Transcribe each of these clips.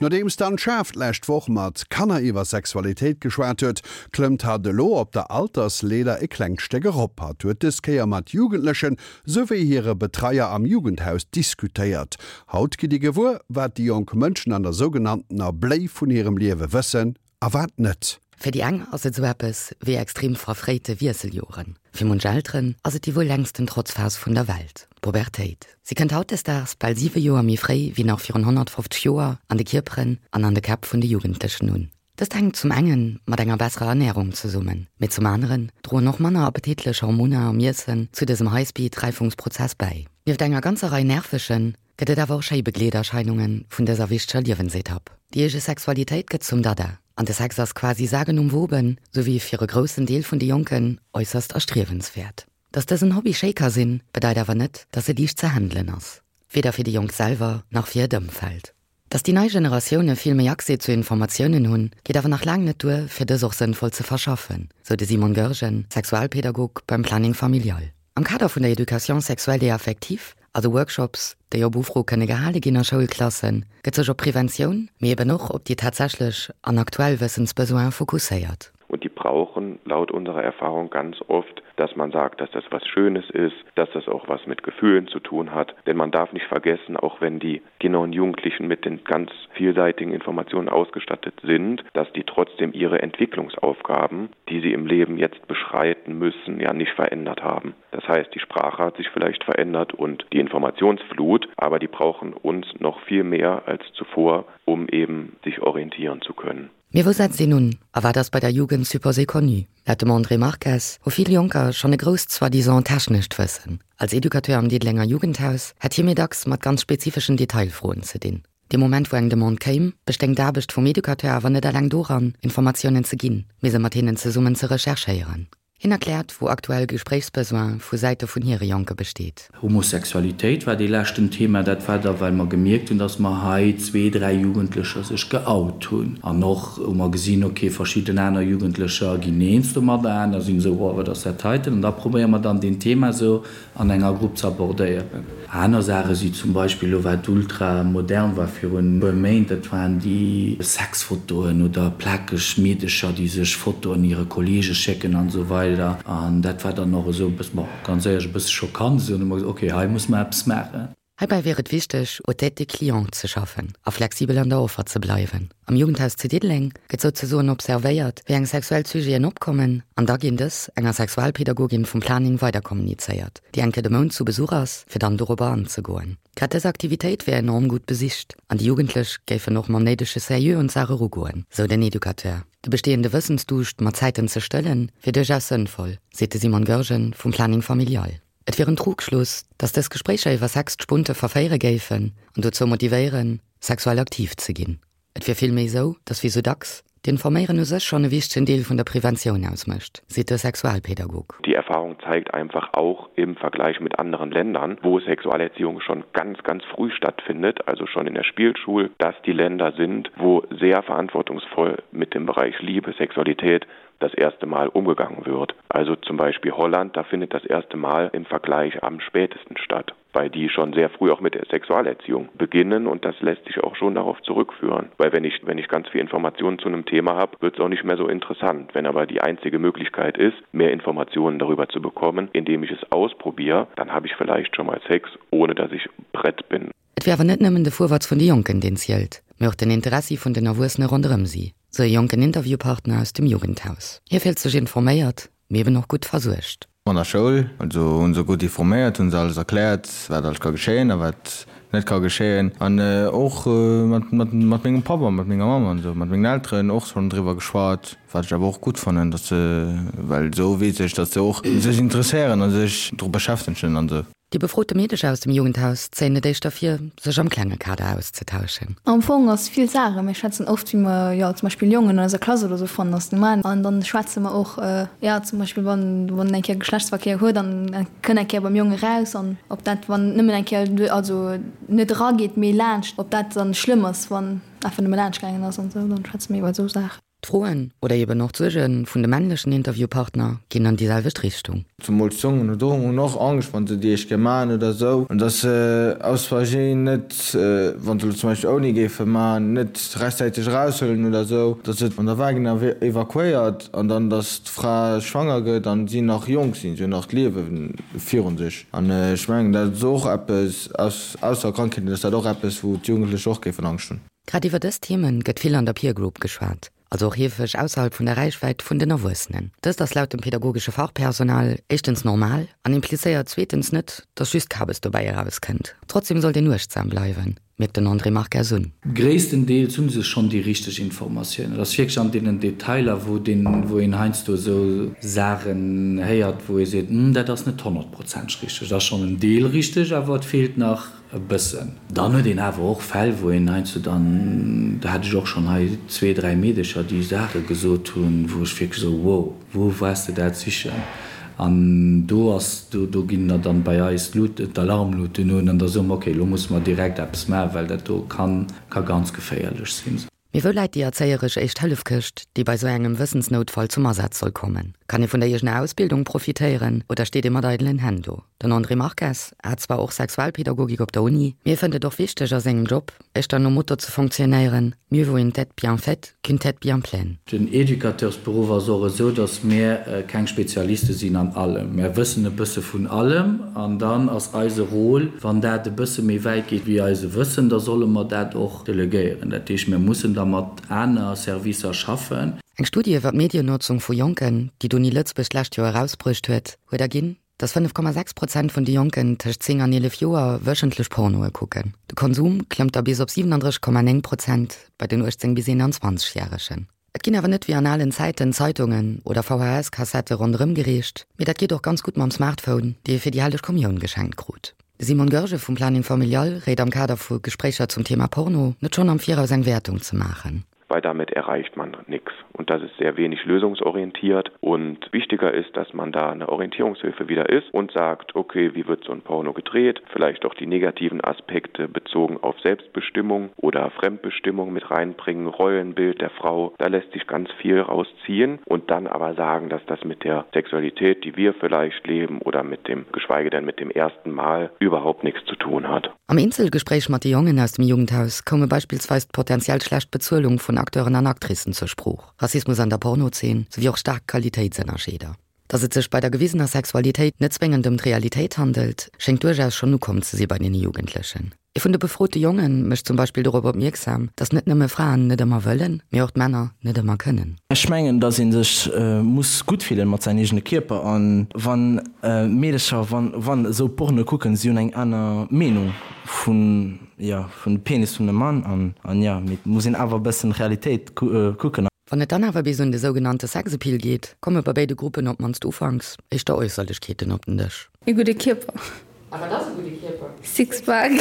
Nodeems d'Anne Schaaf d'lescht Woch mat Kanner iwwer Sexualitéit geschwat huet, klëmmt hatt elo op der Altersleeder e klengt Stéck erop. Hatt huet dës Kéier mat Jugendlechen souwéi hire Betreier am Jugendhaus diskutéiert. Haut gitt Dir gewuer, wat déi jonk Mënschen an der sougenanntener Bléi vun hirem Liewe wëssen a wat net. Fir déi eng ass et esou eppes wéi extrem verfréite Wiesseljoren, fir munch Elteren ass et déi wuel längsten Trotzphas vun der Welt, d'Pubertéit. Si kënnt hautdesdaags bal 7 Joer méi fréi wéi nach virun 150 Joer an de Kierperen an an de Käpp vun de Jugendlechen un. Dëst hänkt zum enge mat enger besserer Ernärung zesummen, mee zum aneren droen och manner appetitlech Hormoner am Iessen zu dësem High-Speed-Räifungsprozess bäi. Nieft enger ganzer Rei nervegen, gëtt et awer och schéi Begleederscheinunge vun dëser wichteger Liewensetapp. Déi eege Sexualitéit gëtt zum Dada an de Sex ass quasi sagenumwoben, souwéi fir e groussen Deel vun de Jonken äusserst erstriewenswäert. Dass dësen Hobby schéi ka sinn, bedeit awer net, dass e liicht ze handelen ass, weder fir déi Jonk selwer nach fir hiert Ëmfeld. Dass déi nei Generatioune vill méi Accès zu Informatiounen hunn, geet awer nach laang net duer, fir dës och sënnvoll ze verschaffen, sou de Simon Goergen, Sexualpedagog beim Planning Familial. Am Kader vun der Éducation sexuelle et affective, also Workshops, déi op Ufro kënne gehale ginn a Schoulklassen, gëtt sech op Preventioun, mee eben och op déi tatsächlech an aktuell Wëssensbesoine fokusséiert. Und die brauchen laut unserer Erfahrung ganz oft, dass man sagt, dass das was Schönes ist, dass das auch was mit Gefühlen zu tun hat. Denn man darf nicht vergessen, auch wenn die Kinder und Jugendlichen mit den ganz vielseitigen Informationen ausgestattet sind, dass die trotzdem ihre Entwicklungsaufgaben, die sie im Leben jetzt beschreiten müssen, ja nicht verändert haben. Das heißt, die Sprache hat sich vielleicht verändert und die Informationsflut, aber die brauchen uns noch viel mehr als zuvor, um eben sich orientieren zu können. Mee wou setzt een un a wat ass bei der Jugend supposé connu? Laut dem André Marques hu vill Jonker schonn e grousst soi-disant technescht Wëssen. Als Educateur am Diddelenger Jugendhaus hätt hie méi dacks mat ganz spezifeschen Detailfroen ze dinn. Dee Moment wou eng Demande kéim, bestéing d'Aarbecht vum Educateur awer net eleng doran, Informatiounen ze ginn, mee se mat hinnen zesummen ze recherchéieren. Hien erkläert, wou aktuell Gespréichsbesoin vu Säite vun hire Jonke besteet. Homosexualitéit war dee leschten Thema. Dat war da, well mer gemierkt hunn, dass mer hei zwee, dräi Jugendlecher sech geout hunn. An och hu mer gesinn, okay, verschidden aner Jugendlecher ginn eens domadder, aner sinn esou, oh, wat ass dat heiten? An da probéiere mer dann, deen Thema esou an enger Grupp ze abordéieren. Aner Saache si zum Beispill elo wat ultra modern war virun e puer Méint, dat waren déi Sexfotoen oder plakeg Meedecher déi sech Fotoen hire Kollege schécken an esou weider. An dat war dann och esou e bëssen, bon, ganz éierlech e bësse schockant esou. An hu mer gesot, ok, hei musse mer eppes maachen. Heibäi wier et wichteg, aux têtes des clients ze schaffen a flexibel an der Offer ze bleiwen. Am Jugendhaus zu Diddeleng gëtt souzesoen observéiert, wéi eng sexuell Sujeten opkommen an da ginn dës enger Sexualpädagogin vum Planning weiderkommunizéiert, déi eng Kéier de Mount zu Besuch ass, fir dann dorobber anzegoen. Grad dës Aktivitéit wär enorm gutt besicht an déi Jugendlech géifen och mam néidege Sérieux un d'Saach erugoen, sou den Educateur. De bestehende Wëssensduuscht mat Zäiten ze stëllen, wier duerchaus sënnvoll, seet de Simon Goergen vum Planning Familial. Et wier en Trugschluss, datt dës Gespréicher iwwer Sex d'Spunte verféiere géifen an dozou motivéieren, sexuell aktiv ze ginn. Et wier villméi esou, datt wéi sou dacks, d'Informéieren u sech schonn e wichtegen Deel vun der Preventioun ausmécht, seet de Sexualpädagog. Die Erfahrung zeigt einfach auch im Vergleich mit anderen Ländern, wo Sexualerziehung schon ganz, ganz früh stattfindet, also schon in der Spielschul, dass die Länder sind, wo sehr verantwortungsvoll mit dem Bereich Liebe, Sexualität das erste Mal umgegangen wird. Also zum Beispiel Holland, da findet das erste Mal im Vergleich am spätesten statt, weil die schon sehr früh auch mit der Sexualerziehung beginnen und das lässt sich auch schon darauf zurückführen. Weil wenn ich, wenn ich ganz viel Informationen zu einem Thema habe, wird es auch nicht mehr so interessant. Wenn aber die einzige Möglichkeit ist, mehr Informationen darüber zu bekommen, indem ich es ausprobiere, dann habe ich vielleicht schon mal Sex, ohne dass ich brett bin. Et wier awer net nëmmen de Fuerwatz vun de Jonken, deen zielt, mee och den Interessi vun den Erwuessene ronderëm si, sou e jonken Interviewpartner aus dem Jugendhaus. Hie fillt sech informéiert, mee eben och gutt versuergt. An der Schoul, also hunn se gutt informéiert, hunn se alles erkläert, wat alles ka geschéien a wat net ka geschéien. An och mat mat mengem Papp a mat menger Mamm an esou, mat mengen Elteren och schonn driwwer geschwat, wat ech awer och gutt fannen, datt se, well esou weess ech, datt se och sech interesséieren a sech dru beschäftegen an esou. Déi befrote Meedecher aus dem Jugendhaus zéien et éischter vir, sech am klenge Kader auszetauschen. Am Fong ass vill Saachen, mir schwätzen oft wéi mer jo zum Beispill Jongen an eiser Klass oder sou fannen ass normal an dann schwätze mer och jo zum Beispill wann wann en eng Kéier Geschlechtsverkéier huet an en kënnt eng Kéier beim Jong eraus an ob dat wann nëmmen eng Kéier also net erageet mee laanscht ob dat dann schlëmm ass wann einfach nëmme laanscht gaangen ass an sou dann schwätze mir iwwer sou Saachen. D'Froen, oder eben och d'Suerge vun de männlechen Interviewpartner ginn an déi selwecht Richtung. Zemools d'Jongen hunn och Angscht, wa se déi éischt Kéier maachen oder esou, an dass se aus Versinn net, wa se elo zum Beispill ouni géife maachen, net rechtzäiteg eraushuelen oder esou, dass et an der Vagina evakuéiert an dann dass d'Fra schwanger gëtt an si nach jonk sinn, si hunn nach d'Liewe virun sech. An ech mengen, dat ass och eppes, ausser Krankheeten, ass dat och eppes, wou d'Jugendlech och géifen Angscht hunn. Grad iwwer dës Themen gëtt vill an der Peer Group geschwat, also och heefeg ausserhalb vun der Räichwäit vun den Erwuessenen. Dëst ass laut dem pedagogesche Fachpersonal éischtens normal an implizéiert zweetens net, dass just Kabes dobäi erauskënnt. Trotzdem sollt een uechtsam bleiwen, mierkt den André Marques un. Gréisstendeels hu se schonn déi richteg Informatiounen. Et ass wierklech an deenen Detailer, wou deen, wou een heiansdo esou Saachen héiert, wou ee seet, Hm, dat ass net honnertprozenteg richteg. Et ass schonn en Deel richteg, awer et feelt nach E bëssen. Dann huet een awer och Fäll, wou een heiansdo dann, do hat ech och schonn hei zwee, dräi Meedecher, déi Saache gesot hunn, wou ech wierklech esou, wow, wou waars de dat sichen? An do ass, do, do ginn der dann bei eis d'Lut, d'Alarmluten un an da soe mer, okay, elo musse mer direkt eppes maachen, well dat do kann, ka ganz geféierlech sinn. Mee wou läit déi erzéieresch Éischt-Hëllef-Këscht, déi bei sou engem Wëssensnoutfall zum Asaz soll kommen? Kann ee vun der eegener Ausbildung profitéieren oder steet ee mat eidelen Hänn do? Den André Marques hat zwar och Sexualpädagogik op der Uni, mee e fënnt et och wichteg a sengem Job, éischter nom Motto ze fonctionnéieren, Mieux vaut une tête bien faite qu'une tête bien pleine. Den Educateursberuff ass och esou, datt mär keng Spezialiste sinn an allem. Mär wëssen e bësse vun allem an dann ass eise Rôle, wann dat e bësse méi wäit geet wéi eise Wëssen, da solle mer dat och Delegéieren. Dat heescht, mir mussen da mat aner Servicer schaffen. Eng Studie iwwer d'Mediennotzung vu Jonken, déi d'Uni Lëtzebuerg d'lescht Joer erausbruecht huet, huet erginn, dass 5,6 Prozent vun de Jonken tëscht 10 an 11 Joer wëchentlech Pornoe kucken. De Konsum klëmmt da bis op 37,9 Prozent bei den 18 bis 21 Järegen. Et ginn awer net wéi an alen Zäiten Zeitungen oder VHS-Kassette ronderëm gereecht, mee dat geet och ganz gutt mam Smartphone, dee ee fir déi helleg Kommioun geschenkt krut. De Simon Goergen vum Planning Familial réit am Kader vu Gespréicher zum Thema Porno, net schonn am Viraus eng Wäertung ze maachen. Weil damit erreicht man nix und das ist sehr wenig lösungsorientiert und wichtiger ist, dass man da eine Orientierungshilfe wieder ist und sagt, okay, wie wird so ein Porno gedreht, vielleicht auch die negativen Aspekte bezogen auf Selbstbestimmung oder Fremdbestimmung mit reinbringen, Rollenbild der Frau, da lässt sich ganz viel rausziehen und dann aber sagen, dass das mit der Sexualität, die wir vielleicht leben oder mit dem geschweige denn mit dem ersten Mal überhaupt nichts zu tun hat. Am Eenzelgespréich mat de Jongen aus dem Jugendhaus koume beispillsweis d'potenziell schlecht Bezuelung vun Acteuren an Actricen zur Sprooch, Rassismus an der Pornozeen souwéi och staark Qualitéitsënnerscheeder. Datt et sech bei der gewisener Sexualitéit net zwéngend ëm d'Realitéit handelt, schéngt duerchaus schonn ukomm ze si bei deene Jugendlechen. Ee vun de befrote Jonge mécht zum Beispill dorop opmierksam, datt net nëmme Fraen net ëmmer wëllen, mee och d'Männer net ëmmer kënnen. Ech mengen, dass ee sech muss gutt fillen mat säin eegene Kierper an wann Meedercher wann wann esou Porno kucken, si hunn eng aner Meenung vun jo vun de Penis vun dem Mann an an jo mee et muss een awer e bëssen Realitéit kucken. Wann et dann awer bis un de sougenannte Sexappeal geet, komme bei béide Gruppen op d'mannst ufanks éischter Äusserlechkeeten op den Dësch. E gudde Kierper. A wat ass e gudde Kierper? Sixpack.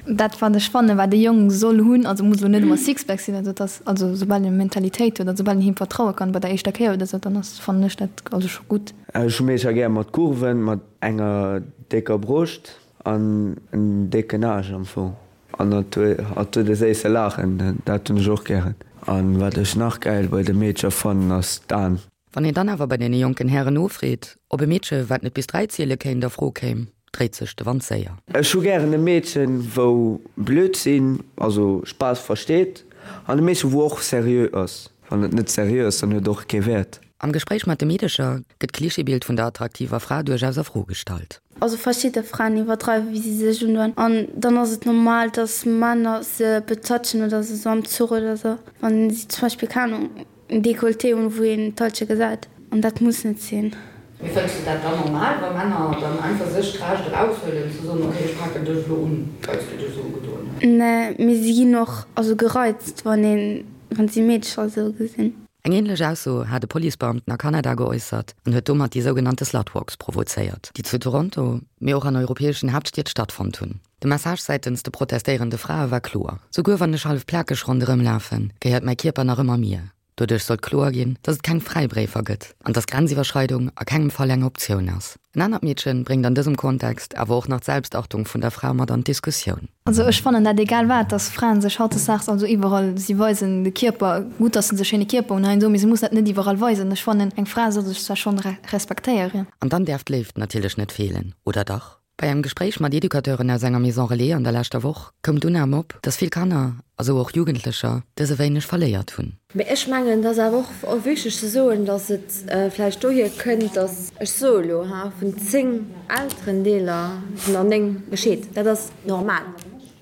Dat wat ech fannen, wat e Jong soll hunn, also muss elo net ëmmer Sixpack sinn, also et ass, also soubal en Mentalitéit huet an soubal en him vertraue kann bei der éischter Kéier oder sou, dann ass, fannen ech dat also scho gutt. Ech hu meeschter gär mat Kurven, mat enger décker Broscht an en décken Aarsch am Fong. An hatt huet e séisse Laachen, dat hunn ech och gären. An wat ech nach gäil bei de Meedcher fannen ass d'Aan. Wann een dann awer bei deene jonken Hären nofreet, ob e Meedche wat net bis 3 ziele kéint a Fro kéim, dréit sech de Wand séier. Ech hu gären e Meedchen wou blöd sinn, also Spaass versteet, an e Meedchen wou och seriö ass. Wann et net seriö ass, dann huet et och kee Wäert. Am Gespréich mat de Meedecher gëtt d'Klischeebild vun der attraktiver Fra duerchaus a Fro gestallt. Also verschidde Fraen iwwerdreiwen wéi si sech undoen an dann ass et normal dass Männer se betatschen oder sou am Zuch oder sou wann si zum Beispill keng Ahnung en Decolleté hunn wou een d'Halsche gesäit an dat muss net sinn. Mee fënns de dat dann normal wa Männer dann einfach sech d'Recht eraushuelen ze soen, ok ech paken dech elo un well s du dech esou ugedoen hues? Nee, mee si ginn och also gereizt wann een wann si Meedecher esou gesinn. Eng änlech Ausso hat e Policebeamten a Kanada geäussert an huet domat déi sougenannte Slutwalks provozéiert, déi zu Toronto, mee och an europäeschen Haaptstied stattfonnt hunn. De Message säitens de protestéierende Frae war kloer, Souguer wann ech hallef plakeg ronderëm lafen, gehéiert mäi Kierper nach ëmmer mir. Doduerch sollt kloer ginn, dass et keng Fräibréifer gëtt an dass Grenziwwerschreidung a kengem Fall eng Optioun ass. En anert Meedche bréngt an dësem Kontext awer och nach d'Selbstachtung vun der Fra mat an d'Diskussioun. Also ech fannen dat egal wat, dass Fraen sech hautdesdaags also iwwerall, si weisen de Kierper, gutt dass se e schéine Kierper hunn heiansdo, mee se mussen dat net iwwerall weisen. Ech fannen eng Fra soll sech zwar schonn respektéieren. An dann däerf d'Léift natierlech net feelen, oder dach? Bei engem Gespréich mat Educateuren aus enger Maison Relais an der leschter Woch koum d'Unnam op, dass vill Kanner, a sou och Jugendlecher, dëse wéineg verléiert hunn. Mee ech mengen, et ass awer och wichteg ze soen, datt et vläicht dohier kënnt, datt, ech soe elo, ha, vun 10 Elterendeeler sinn der 9 gescheet. Dat ass normal.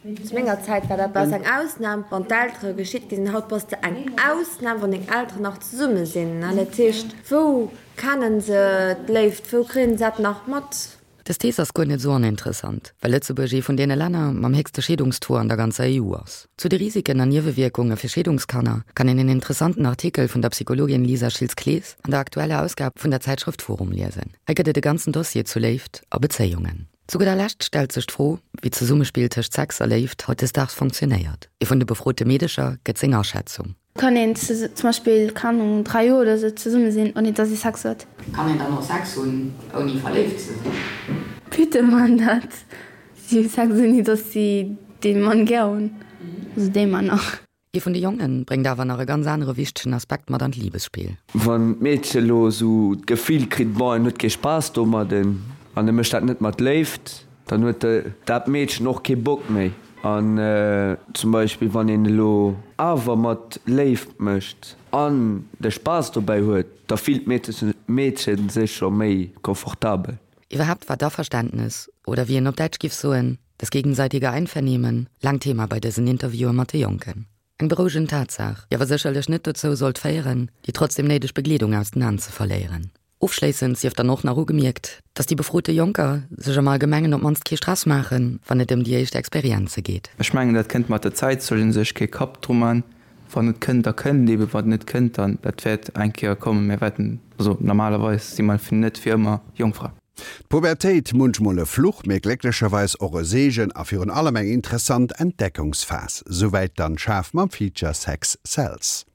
Zu menger Zäit war dat bass eng Ausnam, wann d'Eltere gescheet gi sinn. Haut bass de eng Ausnam, wann deng Elteren nach zesumme sinn. Dat heescht, wou kennen se d'Léift, wou kréien se dat nach mat? Dës Thees ass guer net esou oninteressant, well Lëtzebuerg ee vun deene Länner mam héchste Scheedungstaux an der ganzer EU ass. Zu de Risiken an Niewewierkunge fir Scheedungskanner kann een en interessanten Artikel vun der Psychologin Lisa Schiltz-Clees an der aktueller Ausgab vun der Zäitschrëft Forum liesen. Hei gëtt et e ganzen Dossier zu Léift a Bezéiungen. Zu gudder Lescht stellt sech d'Fro, wéi d'Zesummespill tëscht Sex a Léift hautdesdaags fonctionéiert. Ee vun de befrote Meedecher gëtt seng Aschätzung. Kann een zum Beispill, keng Ahnung, 3 Joer oder sou zesumme sinn, ouni dass ee Sex huet? Kann een dann och Sex hunn, ouni verléift ze sinn? Bitte man dat. Si hu Sex, ouni dass si dee Mann gär hunn, also déi Männer. Ee vun de Jongen bréngt awer nach e ganz anere wichtegen Aspekt mat an d'Libesspill. Wann d'Meedche lo sou d'Gefill kritt, bon, en huet kee Spaass domadden an e mécht dat net mat Léift, Dann huet dat Meedchen och kee Bock méi. An zum Beispill wann een elo awer mat Léift mécht an de Spaass dobäi huet, da fillt d'Meedche sech scho méi confortabel. Iwwerhaapt war d'Averständnes, oder wéi een op Däitsch giff soen, das gegenseitige Einvernehmen, laang Thema bei dësen Interviewe mat de Jonken. Eng berouegend Tatsaach, déi awer sécherlech net dozou sollt féieren, déi trotzdem néideg Begleedung aus den An ze verléieren. Ofschléissend sief dann och nach ugemierkt, dass déi befrote Jonker sech am Allgemengen op d'mannst kee Stress maachen, wann et ëm déi éischt Experienze geet. Ech mengen, dat kënnt mat der Zäit, soll ee sech kee Kapp dru man. Wann et kënnt, da kënnt et eben, wann et net kënnt, dann, dat wäert eng Kéier kommen. Mir wäerten, also normalerweis si mer net fir ëmmer Jongfra. D'Pubertéit, munchmol e Fluch, mee glécklecherweis och e Seegen a virun allem eng interessant Entdeckungsphas. Souwäit d'Anne Schaaf mam Feature Sex Sells.